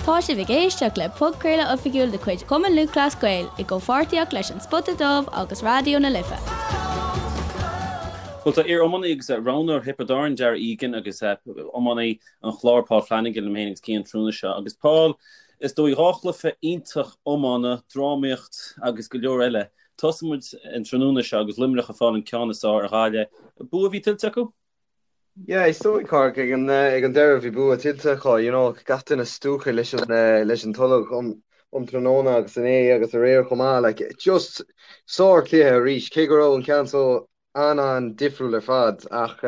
Tá sibh ag éisteacht le podchraoladh oifigiúil de chuid Chumann Lúthchleas Gael i gcomhpháirtíocht leis An Spota Dubh agus Raidió na Life. Bhuel, tá iar-iománaí agus roghnóir Thiobraid Árann, Darragh Egan, agus iománaí an Chláir, Paul Flanagan, liom féin agus Cian an tráthnóna seo. Agus Paul, is dóigh 2 chluiche iontach iomána, drámaíocht agus go leor eile. Tosóidh muid an tráthnóna seo agus Luimneach ag fáil an ceann is fearr ar Ghaillimh. Bua a bhí tuillte acu? Yeah, is dóigh, Cárthach, ag an ag an deireadh bhí bua tuillte acu, you know, gach duine stiúgtha leis an leis an tolg um um tráthnóna agus inné agus aréir chomh maith, like, just sár-chluiche arís, cé go raibh an ceann so an-an-difriúil ar fad ach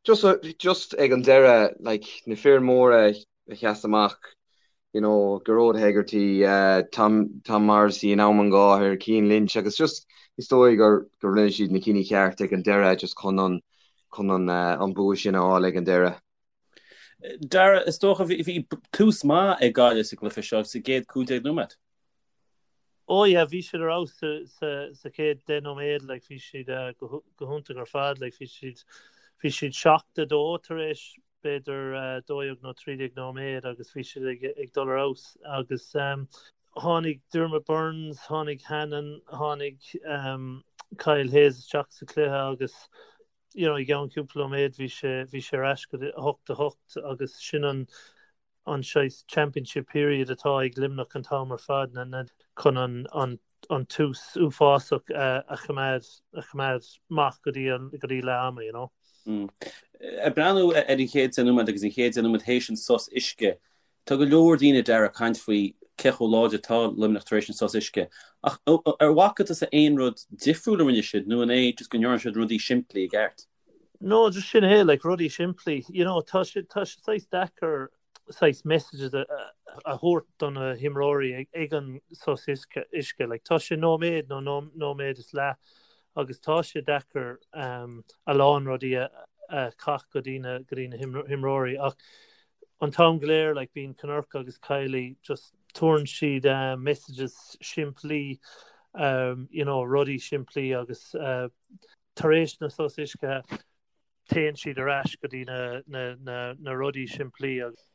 just just ag an deireadh, like, na fir móra a sheas amach, you know, Gearóid Hegarty, Tom Tom Morrissey in am an gháthair, Cian Lynch agus just is dóigh gur gur rinne siad na cinní ceart ag an deireadh just chun an chun an an bua sin a fháil ag an deireadh. Darragh, is dócha bhí bhí tús maith ag Gaillimh sa gcluiche seo sa gcéad 15 nóiméad. Oh yeah, bhí siad ar fheabhas sa sa sa chéad 10 nóiméad, like bhí siad go go hiontach ar fad, like bhí siad bhí siad 7-2 tar éis b'fhéidir 12 nó 13 nóiméad agus bhí siad ag dul ar fheabhas agus tháinig Diarmaid Byrnes, tháinig Hannon, tháinig Kyle Hayes isteach sa chluiche agus you know i gceann cúpla nóiméad bhí sé bhí sé ar ais go 8 8 agus sin an an saghas championship period atá ag Luimneach an t-am ar fad na na chun an an an tús uafásach a choimeád a choimeád amach go dtí an go dtí leath ama, you know. Ag breathnú ar an chéad 10 nóiméad agus an chéad 10 nóiméad théis an sos uisce, tá go leor daoine Darragh ag caint faoi cé chomh láidir atá Luimneach tar éis an sos uisce. Ach ar bhfaca tusa aon rud difriúil a rinne siad nó an é just go ndearna siad rudaí simplí i gceart? No, just sin é, like, rudaí simplí. You know, tá sé tá sé saghas deacair saghas messages a thabhairt do na himreoirí ag an sos uisce. Like, tá sé nóiméad nó nóiméad is leath agus tá sé deacair a lán rudaí a chaith go dtí na go dtí na himreoirí ach an t-am go léir like, bíonn Kinnerk agus Kiely just tabharann siad messages simplí um, you know, rudaí simplí agus uh, tar éis na sos uisce téann siad ar ais go dtí na rudaí simplí agus.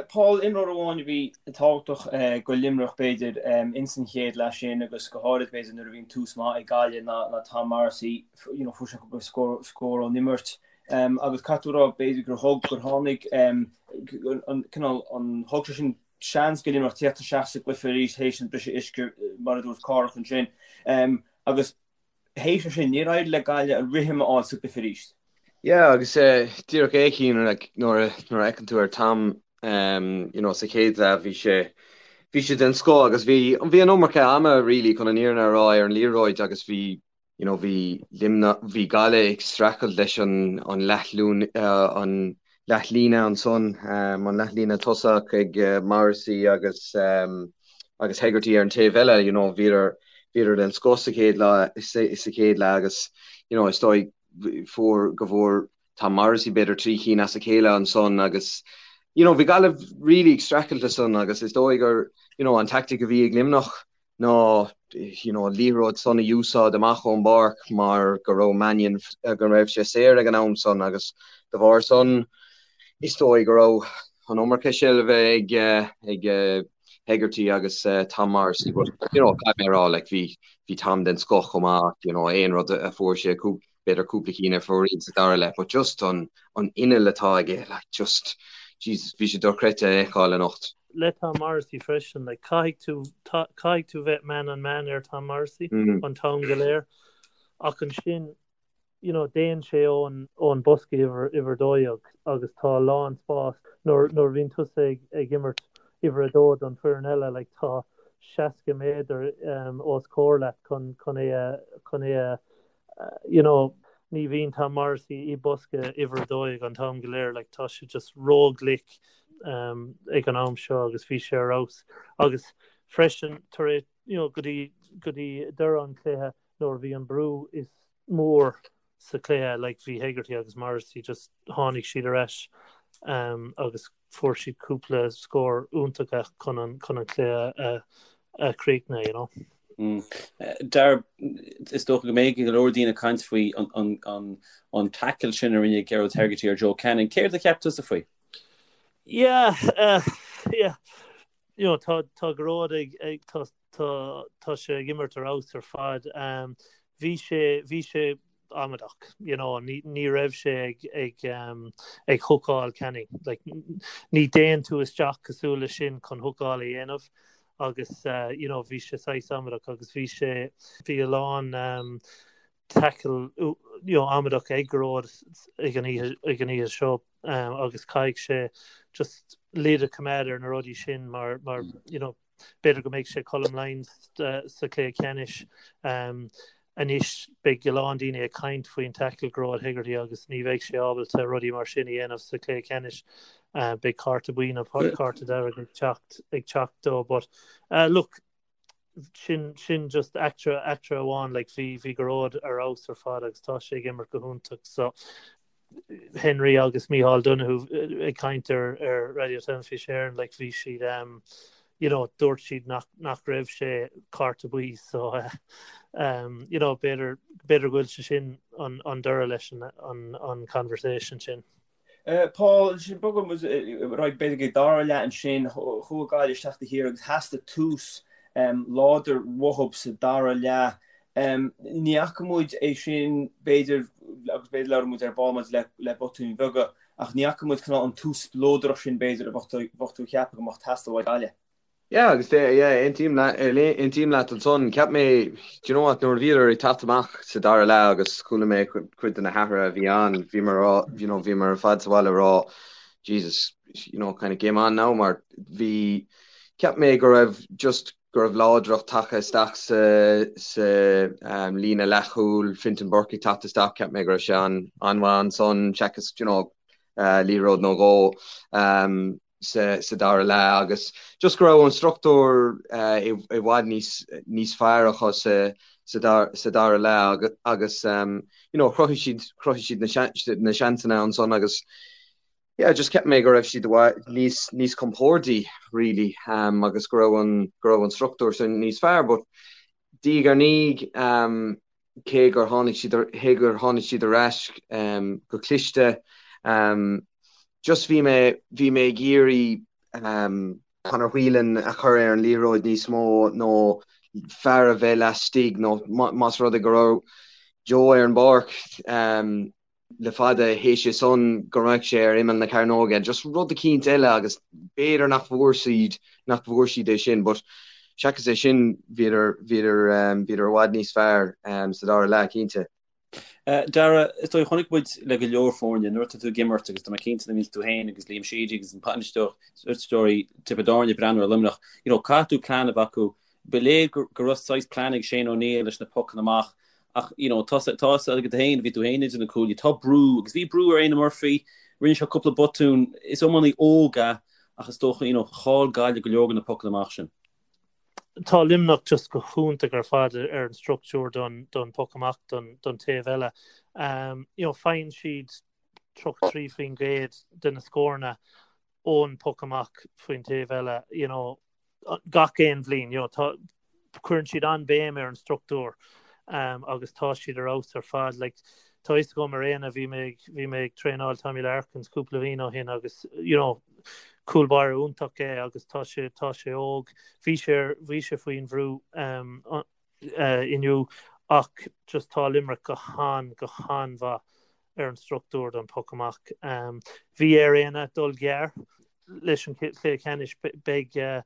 Paul, imreoir amháin a bhí tábhachtach go Luimneach b'fhéidir ins an chéad leath sin agus go háirid b'fhéidir nuair a bhí an tús maith ag Gaillimh ná Tom Morrissey, you know, fuair sé cúpla scór ón imirt agus caithfidh tú a rá b'fhéidir gur thug, gur tháinig an cineál, an, thug sé sin seans go Luimneach tíocht isteach sa gcluiche arís théis an briseadh uisce mar a dúirt Cárthach ansin agus Théis sin, níor éirigh le Gaillimh an rithim a fháil sa gcluiche arís. Yeah, agus díreach é Cian, like, nuair a fheiceann tú ar Tom, you know, sa chéad leath bhí sé, bhí sé den scoth agus bhí, bhí an iomarca ama really chun an fhírinne a rá ar an liathróid agus bhí, you know, bhí Luimneach, bhí Gaillimh ag streachailt leis an, an leathlún, an leathlíne ansan, an leathlíne tosach ag Morrissey agus agus Hegarty ar an taobh eile, you know, bhíodar bhíodar den scoth sa chéad lá sa chéad leath agus you know, is dóigh fuair go bhfuair Tom Morrissey b'fhéidir 3 chinn as a chéile ansan agus you know, bhí Gaillimh really ag streachailt leis san agus is dóigh gur you know, an tactic a bhí ag Luimneach ná you know, an liathróid san a úsáid amach ón bpáirc mar go raibh Mannion, go raibh sé saor ag an am san agus de bharr san is dóigh go raibh an iomarca seilbhe ag ag Hegarty agus Tom Morrissey but you know, caithfidh mé a rá like, bhí bhí Tom den scoth chomh maith you know, aon rud a fuair sé b'fhéidir cúpla cinn ar fóraoil sa dara leath but just an an inneall atá aige like just Jesus bhí sé dochreidte a fheiceáil anocht. Le Tom Morrissey freisin like caithfidh tú caithfidh tú bheith man on man ar Tom Morrissey an t-am go léir ach ansin you know déann sé ón ón bosca uimhir uimhir 12 agus tá a lán spás nuair nuair a bhíonn tusa ag ag imirt uimhir 2 don foireann eile like tá 60 méadar um, os comhair leat chun chun é a chun é a you know, ní bhíonn Tom Morrissey i bosca uimhir 12 an t-am go léir, like, tá sé just ró-ghlic um, ag an am seo agus bhí sé ar fheabhas. Agus freisin tar éis, you know, go dtí go dtí deireadh an chluiche nuair a bhí an brú is mór sa chluiche, like, bhí Hegarty agus Morrissey just tháinig siad ar ais um, agus fuair siad cúpla scór iontacha chun an chun an cluiche a a chríochnú, you know. Dar, is dócha go mbeidh go leor daoine ag caint faoi an tackle sin a rinne Gearóid Hegarty ar Joe Canning. Céard a cheap tusa faoi? Yeah, uh, yeah. You know, tá tá Gearóid ag ag tá tá tá sé ag imirt ar fheabhas ar fad. Um, bhí sé bhí sé amaideach, you know, ní ní raibh sé ag ag um, ag hookáil Canning. Like, ní dtéann tú isteach cosúil le sin chun hookáil a dhéanamh agus uh, you know, bhí sé saghas amaideach agus bhí sé bhí a lán um, tackle you know, amaideach ag Gearóid ag an oíche ag an oíche seo um, agus caithfidh sé just lid a choimeád ar na rudaí sin mar mar you know, b'fhéidir go mbeidh sé Colm Lyons uh, sa chluiche ceannais um, anois beidh a lán daoine ag caint faoin tackle Gearóid Hegarty agus ní bheidh sé ábalta rudaí mar sin a dhéanamh sa chluiche ceannais. Uh, beidh cárta buí nó cárta dearg ag teacht ag teacht dó but uh, look sin sin just eachtra eachtra amháin like bhí bhí Gearóid ar fheabhas ar fad agus tá sé ag imirt go hiontach so Henry agus Mícheál Donoghue ag caint ar ar Raidió Teilifís Éireann like bhí siad um, you know dúirt siad nach nach raibh sé cárta buí so uh, um, you know b'fhéidir b'fhéidir go bhfuil sé sin an an deireadh leis an an an conversation sin. Paul, sin bogfaidh muid ar aghaidh b'fhéidir go dara leath ansin, chuaigh Gaillimh isteach do Chiarraí agus theastaigh tús láidir uathub sa dara leath. Ní fhaca muid é sin b'fhéidir, agus b'fhéidir labhróidh muid ar ball maidir le botúin bheaga, ach ní fhaca muid cineál an tús spleodrach sin b'fhéidir a bheadh tú ag ceapadh go mbeadh ag teastáil ó Ghaillimh. Yeah, agus yeah, aontaím leat, aontaím leat ansan. Cheap mé, do you know what, nuair a bhíodar ag teacht amach sa dara leath agus chuala mé cuid de na hathruithe a bhí ann, bhíomar a rá, you know, bhíomar ar fad sa bhaile ag rá, Jesus, you know, kind of game on now mar bhí, cheap mé go raibh just, go raibh láidreacht tagtha isteach sa, sa um, líne leathchúil, Fintan Burke ag teacht isteach, cheap mé go raibh sé an, an-mhaith ansan, seachas, you know, uh, liathróid nó dhó. Um, sa dara leath agus just go raibh an struchtúr i bhfad níos níos fearr acu sa dara leath agus you know chruthaigh siad chruthaigh siad na seansanna ansan agus yeah just cheap mé go raibh siad níos níos compordaí really agus go raibh an go raibh an struchtúr sin níos fearr but diaidh ar ndiaidh cé gur tháinig siad cé gur tháinig siad ar ais go cliste. Just bhí mé bhí mé ag iarraidh Conor Whelan a chur ar an liathróid níos mó nó fear a bheith laistigh nó más rud é go raibh Joe ar an bpáirc le fada théis é san go mbeadh sé ar imeall na cearnóige, just rud eicínt eile agus b'fhéidir nach bhfuair siad, nach bhfuair siad é sin but seachas é sin bhíodar, bhíodar, bhíodar i bhfad níos fearr sa dara leath cinnte. Dara, is dóigh chonaic muid le go leor foirne nuair atá tú ag imirt agus tá mé cinnte nuair a bhíonns tú féin agus Liam Sheedy agus an bainisteoirí Tiobraid Árann ag breathnú ar Luimneach, you know, caithfidh tú plean a bheith acu. Ba léir go raibh saghas plean ag Shane O'Neill leis na pocanna amach Ach, you know, tá tá a fhios agat féin, bhí tú féin idir na cuaillí, tá brú, agus bhí brú ar Éanna Murphy, rinne sé cúpla botún, is iománaí óg é, ach is dócha, you know, chaill Gaillimh go leor de na pocanna amach sin. Tá Luimneach just go hiontach ar fad ar an struchtúr don don poc amach don don taobh eile. Um, you know, faigheann siad 33% de na scóranna ón poc amach faoin taobh eile, you know, gach aon bhliain, you know, tá, cuireann siad an-béim ar an struchtúr um, agus tá siad ar fheabhas ar fad. Like, tá fhios agam ar Éanna, bhí mé ag, bhí mé ag traenáil Tommy Larkins cúpla bhliain ó shin agus, you know, cúl báire iontach é agus tá sé, tá sé óg. Bhí sé, bhí sé faoin bhrú um, inniu ach just tá Limerick go han, go han-mhaith ar an struchtúr don poc amach. Bhí ar Éanna dul gearr leis an chluiche ceannais. Beidh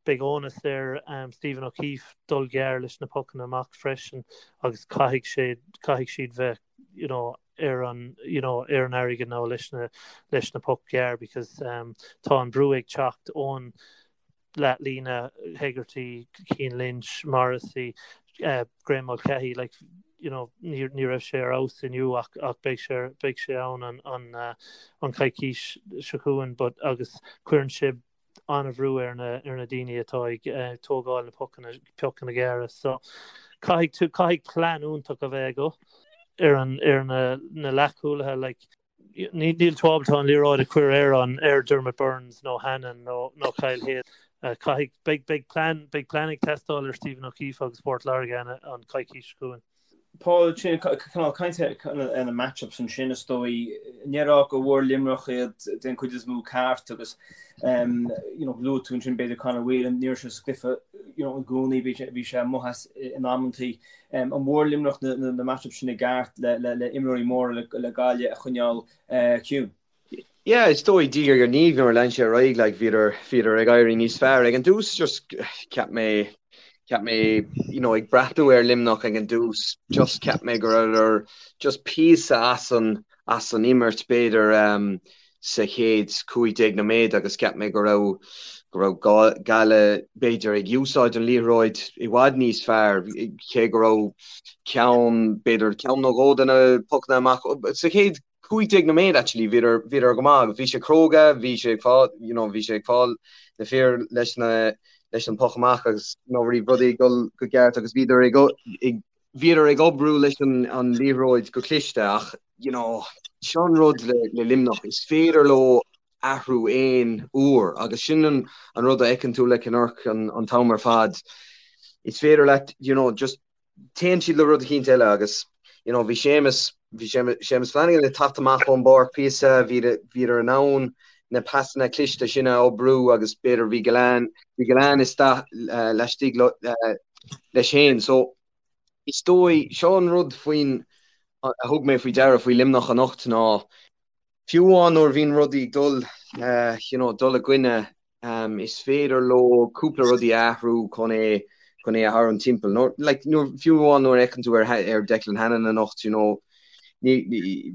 beidh onus ar Stephen O'Keefe dul gearr leis na pocanna amach freisin agus caithfidh sé caithfidh siad bheith you know ar an you know ar an airgead now leis na leis na poc gearr because um, tá an brú ag teacht ón leathlíne, Hegarty, Cian Lynch, Morrissey, Graeme Mulcahy, like, you know, ní ní raibh sé ar fheabhas inniu ach ach beidh sé beidh sé ann an an an coicís seo chugainn but agus cuireann sé an-bhrú ar na ar na daoine atá ag tógáil na pocanna pocanna gearra so caithfidh tú caithfidh plean iontach a bheith agat ar an ar na na leathchúlaithe like Níl tú ábalta an liathróid a chur ar an ar Dermot Burns nó Hannon nó nó Kyle Hayes. Caithfidh beidh beidh plean beidh plean ag teastáil ar Stephen O'Keefe agus Port Láirge an an coicís seo chugainn. Paul, sin cineál caint ar na match-ups ansin is dóigh. An ndéarfá go bhfuair Luimneach iad den chuid is mó ceart agus you know luaigh tú ansin b'fhéidir Conor Whelan, ní raibh sé sa gcluiche you know i gcónaí, bhí sé bhí sé amuigh as in amantaí. An bhfuair Luimneach na na match-ups sin i gceart le le le imreoirí móra le le Gaillimh a choinneáil ciúin? Yeah, is dóigh diaidh ar ndiaidh nuair a lean sé ar aghaidh, like, bhíodar, bhíodar ag éirí níos fearr. Ag an dtús, just cheap mé, cheap mé, you know, ag breathnú ar Luimneach ag an dtús, just cheap mé go rabhadar just píosa as an, as an imirt b'fhéidir um, sa chéad 15 nóiméad agus cheap mé go raibh, go raibh Gaillimh b'fhéidir ag úsáid an liathróid i bhfad níos fearr, cé go raibh ceann, b'fhéidir ceann nó dhó de na pocanna amach sa chéad 15 nóiméad actually bhíodar bhíodar go maith agus bhí sé cróga bhí sé ag fáil you know bhí sé ag fáil na fir leis na leis an poc amach agus you know bhí rudaí ag dul go ceart agus bhíodar ag ag bhíodar ag oibriú leis an an liathróid go cliste ach you know seo an rud le le Luimneach is féidir leo athrú aon uair agus sin an an rud a fheiceann tú le Kinnerk an an t-am ar fad is féidir leat you know just téann siad le rud eicínt eile agus you know bhí Séamus, bhí Séamus Flanagan ag teacht amach ón bpáirc píosa, bhíodar in ann na pasanna cliste sin a oibriú agus b'fhéidir bhí Gillane, bhí Gillane isteach laistigh leis féin. So is dóigh, seo an rud faoin, a thug mé faoi deara faoi Luimneach anocht ná Fiú amháin nuair a bhíonn rudaí ag dul, you know, dul i gcoinne, is féidir leo cúpla rudaí a athrú chun é, chun é a tharraingt timpeall. Nuair, like, nuair, fiú amháin nuair a fheiceann tú ar, ar Declan Hannon anocht, you know, ní,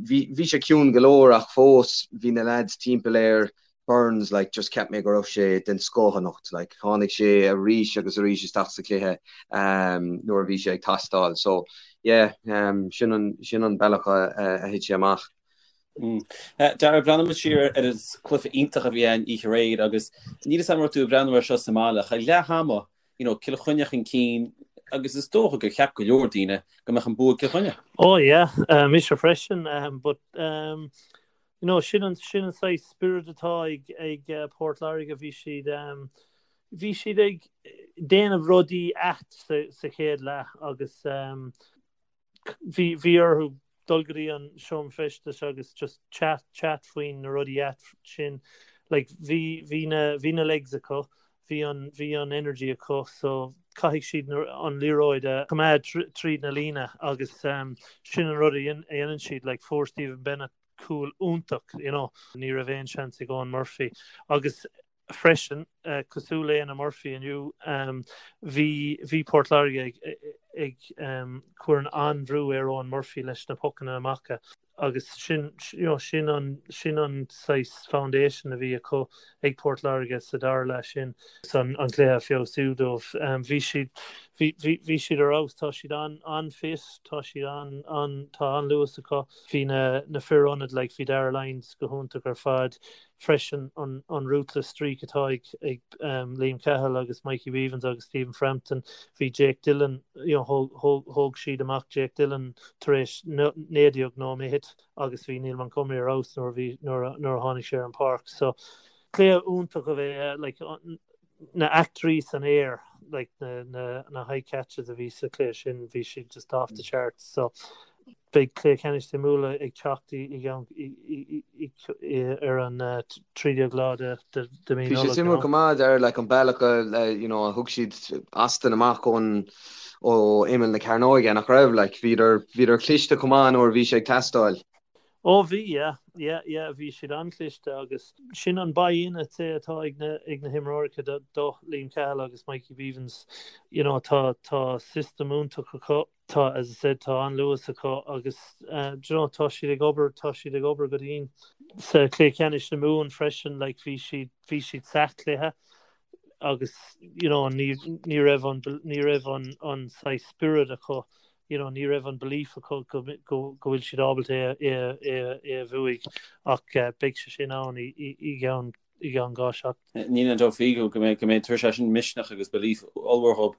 bhí, bhí sé ciúin go leor ach fós bhí na lads timpeall air, Burns, like, just cheap mé go raibh sé den scoth anocht, like, tháinig sé arís agus arís isteach sa chluiche nuair a bhí sé ag teastáil. So, yeah, sin an, sin an bealach a, a thit sé amach. Darragh, breathnaímid siar ar an cluiche iontach a bhí ann oíche aréir agus níl 'fhios a'm an raibh tú ag breathnú air seo sa mbaile ach ag leath ama, you know, Cill Chainnigh chun cinn agus is dócha gur cheap go leor daoine go mbeadh an bua ag Cill Chainnigh. Oh yeah, mise freisin, but you know, sin an sin an saghas spiorad atá ag ag Port Láirge, bhí siad bhí siad ag déanamh rudaí ait sa sa chéad leath agus bhí bhí orthu dul go dtí an seomra feistis agus just chat chat faoin na rudaí ait sin like bhí bhí na bhí na legs acu bhí an bhí an energy acu so caithfidh siad na an liathróid a choimeád tríd na líne agus um, sin an rud a dhéanann siad like fuair Stephen Bennett cúl iontach you know ní raibh aon seans ag Eoin Murphy agus freisin, cosúil le Éanna Murphy inniu, bhí bhí Port Láirge ag ag cur an-bhrú ar Eoin Murphy leis na pocanna amach agus sin you know sin an sin an saghas foundation a bhí acu ag Port Láirge sa dara leath sin an an cluiche a feabhsú dóibh. Bhí siad bhí bhí bhí siad ar fheabhas, tá siad an an-fit, tá siad an an tá an-luas acu. Bhí na na fir ionaid like bhí Darragh Lyons go hiontach ar fad. freisin an ruthless streak atá ag Liam Cahill agus Mikey Bevans agus Stephen Frampton. Bhí Jake Dillon, you know, thóg siad amach Jake Dillon tar éis 19 nóiméad agus bhí Neil Montgomery ar fheabhas nuair a bhí nuair a tháinig sé ar an bpáirc. So cluiche iontach a bhí like na eachtraí san aer like na na na high catches a bhí sa chluiche sin bhí siad just off the charts so beidh cluiche ceannais suimiúla ag teacht i gceann ar an 13 lá de de mí Bhí sé suimiúil go maith ar like an bealach a you know a thug siad Aston amach ón ó imeall na cearnóige nach raibh like bhíodar bhíodar cliste chomh maith nuair a bhí sé ag teastáil. Ó bhí, yeah, yeah, yeah, bhí siad an-chliste agus sin an buy-in I'd say atá ag na, ag na himreoirí do, do Liam Cahill agus Mikey Bevans. You know, tá, tá system iontach acu, tá, as I said, tá an-luas acu agus eh, do you know, tá siad ag obair, tá siad ag obair go dian. Sa chluiche ceannais na Mumhan freisin, like, bhí siad, bhí siad sa chluiche agus, you know, ní, ní raibh an, ní raibh an, an saghas spiorad acu you know, ní raibh an belief acu go go bhfuil siad ábalta é é é é a bhuaigh ach beidh sé sin ann i i gceann i gceann 2 seachtain. Níl aon dabht faoi go go mbeidh go mbeidh tabharfaidh sé sin misneach agus belief ollmhór dhób.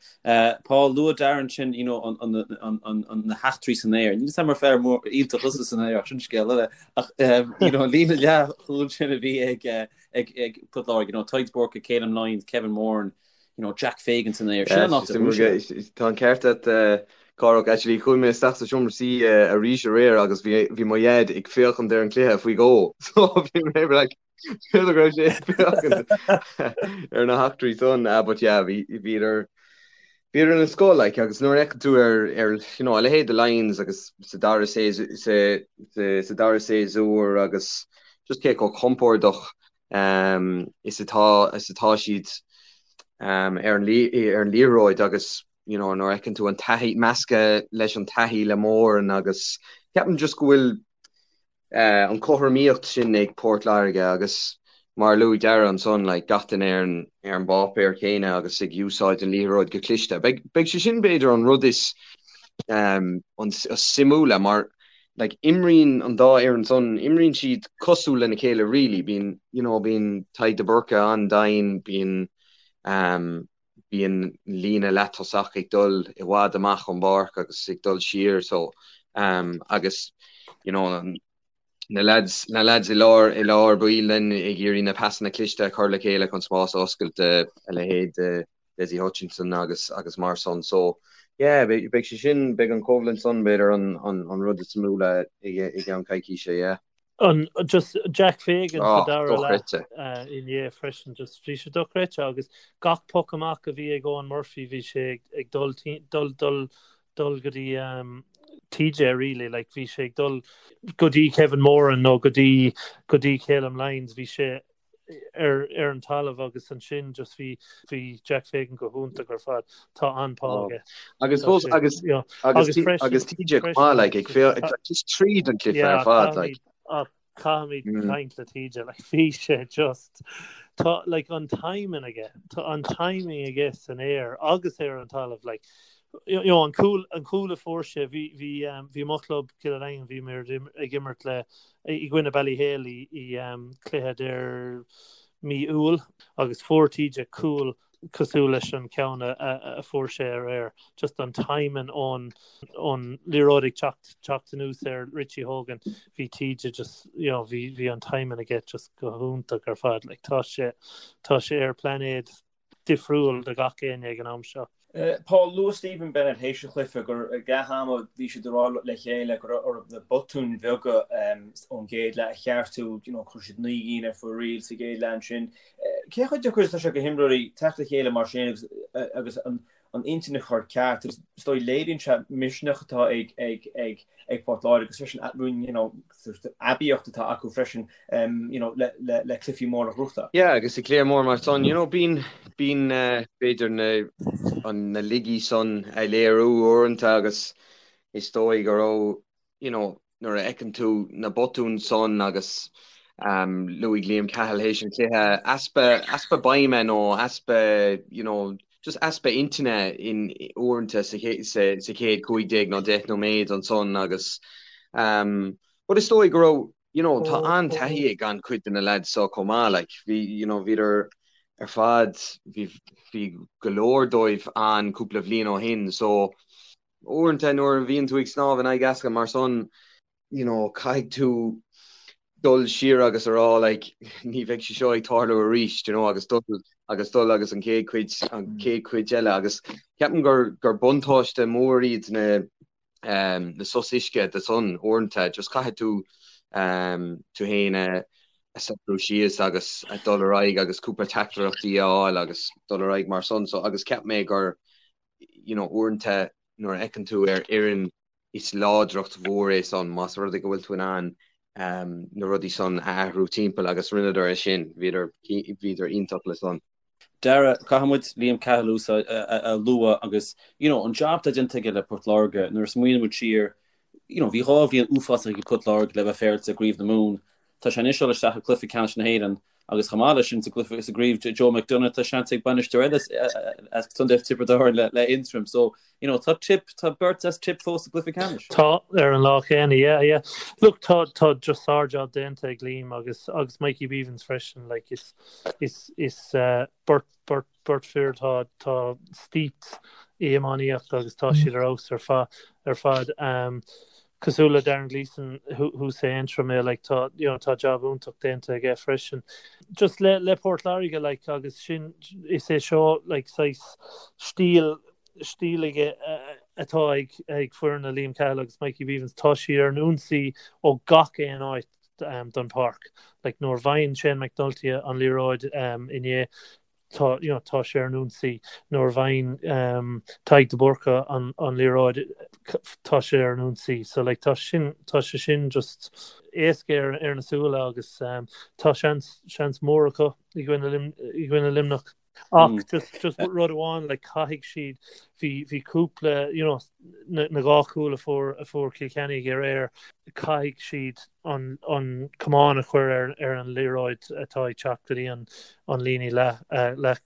Paul, luaigh Darren ansin you know, an an an an an na heachtraí san aer. Níl 'fhios a'm ar fear mór iontach thusa san aer ach sin scéal eile. Ach you know, an líne leathchúil sin a bhí ag ag ag Port Láirge, you know, Tadhg Burke, Calum Lyons, Kevin Moran, you know, Jack Fagan san aer. Sin an áit a bhfuil sé. Tá an ceart agat. Cárthach, actually chuaigh mé isteach sa seomra suí arís aréir agus bhí bhí mo dhaid ag féachaint ar an cluiche faoi dhó so bhí mé like b'fhéidir go raibh sé ag féachaint ar na heachtraí san ah but yeah bhí bhíodar bhíodar den scoth like agus nuair a fheiceann tú ar ar you know a leithéid de Lyons agus sa dara sa sa sa dara séasúr agus just cé chomh compordach um is atá is atá siad um ar an ar an liathróid agus you know nuair a fheiceann tú an taithí measctha leis an taithí le Moran agus ceapaim just go bhfuil eh, an cothromaíocht sin ag Port Láirge agus mar a luaigh Dara ansan like gach duine ar an ar an bpáipéar céanna agus ag úsáid an liathróid go cliste. Beidh beidh sé sin b'fhéidir an rud is um, an is suimiúla mar like imríonn an dá fhoireann san imríonn siad cosúil lena chéile really bíonn you know bíonn Tadhg de Búrca an-domhain bíonn um, bíonn líne leath-tosach ag dul i bhfad amach ón bpáirc agus ag dul siar so um, agus you know, na lads, na lads i lár i lár baill then ag iarraidh na pasanna cliste a chur le chéile chun spás a oscailt a leithéid de Dessie Hutchinson agus agus mar san so yeah beidh beidh sé sin beidh an coimhlint san b'fhéidir an an an rud is suimiúla i i gceann coicíse yeah. An just Jack Fagan sa dara leath inné freisin just bhí sé dochreidte agus gach poc amach a bhí ag Eoin Murphy bhí sé ag dul dul dul dul go dtí TJ really like bhí sé ag dul go dtí Kevin Moran nó go dtí go dtí Calum Lyons bhí sé ar ar an talamh agus ansin just bhí bhí Jack Fagan go hiontach ar fad. Tá an-phá aige. Agus fós agus agus agus TJ chomh maith like ag féachaint just tríd an cluiche ar fad like. Caithfimid caint le TJ like bhí sé just tá like an timing aige tá an timing aige san aer agus ar an talamh like you know an cúl an cúl a fuair sé bhí bhí bhí mo chlub Cill an Daingin bhí muid ag imirt le i gcoinne Ballyhale i cluiche deireadh mí Iúil agus fuair TJ cúl cosúil leis an ceann a fuair sé aréir. Just an timing ón ón liathróid ag teacht teacht anuas ar Richie Hogan bhí TJ just you know bhí bhí an timing aige just go hiontach ar fad. Like tá sé tá sé ar pláinéad difriúil do gach éinne ag an am seo. Paul, luaigh Stephen Bennett théis an chluiche gur ag leath ama bhí siad ag rá le chéile go raibh orthu na botúin bheaga ón gcéad leath a cheartú, you know, chuir siad 9 gcinn ar fóraoil sa gcéad leath ansin. Cé chomh deacair is atá sé go himreoirí teacht le chéile mar sin agus agus an an intinn a chur ceart agus is dóigh léiríonn sé misneach atá ag ag ag ag Port Láirge agus freisin you know, aibíocht atá acu freisin you know, le, le, le cluichí móra a ghnóthachtáil. Yeah, agus i gcluiche mór mar san, you know, bíonn, bíonn uh, b'fhéidir na, an, na laigí san a léiriú uaireanta agus is dóigh go raibh, you know, nuair a fheiceann tú na botúin san agus um, luaigh Liam Cahill théis an chluiche, easpa, easpa beime nó easpa, you know, just easpa intinne in uaireanta sa sa chéad 15 nó 10 nóiméad ansan agus um, but is dóigh go raibh you know, tá an-taithí ag an-chuid de na lads seo chomh maith like bhí you know, bhíodar ar fad bhí bhí go leor dóibh ann cúpla bhliain ó shin so uaireanta nuair a bhíonn tú ag snámh in aghaidh easca mar san you know, caithfidh tú dul siar agus a rá like ní bheidh sé seo ag tarlú arís, you know, agus dul agus dul agus an chéad chuid an chéad chuid eile agus ceapaim gur gur buntáiste mór iad na um, na sos uisce de san uaireanta just caithfidh tú um, tú féin a a socrú síos agus a dul ar aghaidh agus cúpla teachtaireachtaí a fháil agus dul ar aghaidh mar san so agus cheap mé gur you know, uaireanta nuair a fheiceann tú ar fhoireann is láidreacht mhór é san más rud é go bhfuil tú in ann na rudaí san a athrú timpeall agus rinneadar é sin, bhíodar, bhíodar iontach le san. Dara, caithfidh muid Liam Cahill a lua agus you know an job atá déanta aige le Port Láirge nuair a smaoiníonn muid siar you know bhí 2 bhliain uafásach ag Port Láirge le bheith féaráilte i gCraobh na Mumhan Tá sé anois ag dul isteach i gcluiche ceannais na hÉireann agus chomh maith leis sin sa gcluiche sa gcraobh Joe McDonagh tá seans ag bainisteoir eile as Contae Tiobraid Árann le le Aontroim so you know tá Tip tá beirt as Tip fós sa gcluiche ceannais. Tá ar an lá céanna yeah yeah. Look tá tá just sár-job déanta ag Liam agus agus Mikey Bevans freisin like is is is uh, beirt beirt beirt fir atá atá steeped i iománaíocht agus tá siad ar fheabhas ar fad ar fad. Um, cosúil le Darren Gleeson thuas i Aontroim é like tá you know tá job iontach déanta aige freisin. Just le le Port Láirge like agus sin is é seo like saghas stíl stíl aige. atá ag ag foireann Liam Cahill agus Mikey Bevans, tá siad ar an ionsaí ó gach aon áit den pháirc. Like nuair a bhfaigheann Shane McNulty an liathróid inné, tá you know tá sé ar an ionsaí. Nuair a bhfaigheann Tadhg de Búrca an an liathróid, tá sé ar an ionsaí. So like tá sin tá sé sin just éasca ar ar na súile agus tá seans seans mór acu i gcoinne i gcoinne Luimneach. Ach just just rud amháin like caithfidh siad bhí bhí cúpla you know na na dhá chúl a fuair a fuair Cill Chainnigh aréir caithfidh siad an an camán a chur ar ar an liathróid atá ag teacht go dtí an an líne leath leath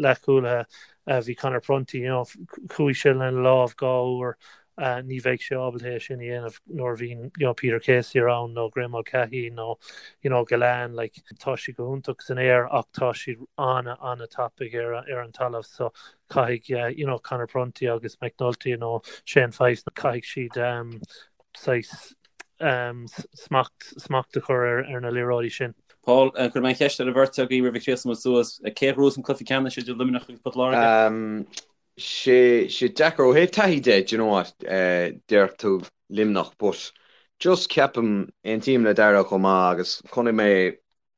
leathchúlaithe bhí Conor Prunty you know chuaigh sé lena lámh dhá uair ní bheidh sé ábalta é sin a dhéanamh nuair a bhíonn you know Peter Casey around nó Graeme Mulcahy nó you know Gillane like tá siad go hiontach san aer ach tá siad ana ana tapaidh ar ar an talamh so caithfidh you know Conor Prunty agus McNulty nó Shane Fyfe caithfidh siad um, saghas um, smacht smacht a chur ar ar na liathróidí sin. Paul, cuirfidh mé an cheist ar an bheirt agaibh roimh a chríochnóidh muid suas. Cé a ghnóthós an cluiche ceannais idir Luimneach agus Port Láirge? Um, sé sé deacair ó thaobh taithí de, do you know what, déarfadh tú Luimneach but just ceapaim, aontaím le Darragh chomh maith agus chonaic mé,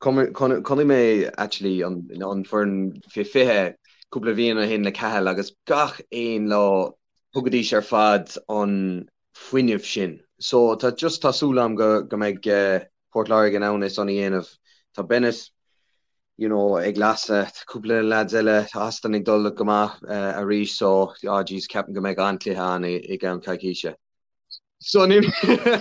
chonaic mé actually an an foireann fé 20 cúpla bhliain ó shin le Cahill agus gach aon lá thugaidís ar fad an fuinneamh sin. So tá just tá súil agam go go mbeidh Port Láirge in ann é san a dhéanamh. Tá Bennett you know ag lasadh, tá cúpla lads eile, tá Austin ag dul go maith arís so ah jeez ceapaim go mbeidh an-chluiche ann i gceann coicíse. So ní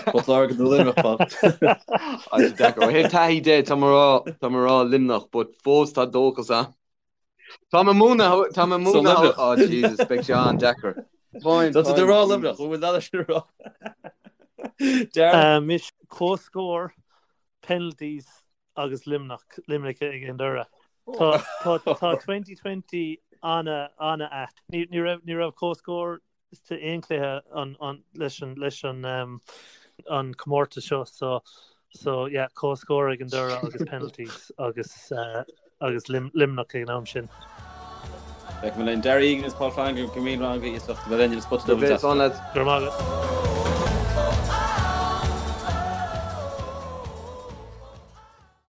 Port Láirge nó Luimneach, Paul. Ah, sé deacair. Ó thaobh taithí de, tá mé rá, tá mé rá Luimneach, but fós tá dóchas ann. Tá mé múineadh, tá mé So múineadh, Luimneach. oh Jesus, beidh sé an-deacair. Táim, Tá tú táim, rá Jesus. Luimneach, bhfuil leat sin a rá? Darragh? Mise comhscór, penalties agus Luimneach, Luimneach ag an deireadh. Tá tá tá 2020 ana ana ait. Ní ní raibh ní raibh comhscór sa aon chluiche an an leis an leis an um, an comórtas seo so so yeah comhscór ag an deireadh agus penalties agus uh, agus Lim, Luimneach ag an am sin. Feicfidh muid linn Darragh Egan agus Paul Flanagan go míle maith agaibh as ucht a bheith linn ar an Spota Go Dubh bhfios, an lads. Go raibh maith agat.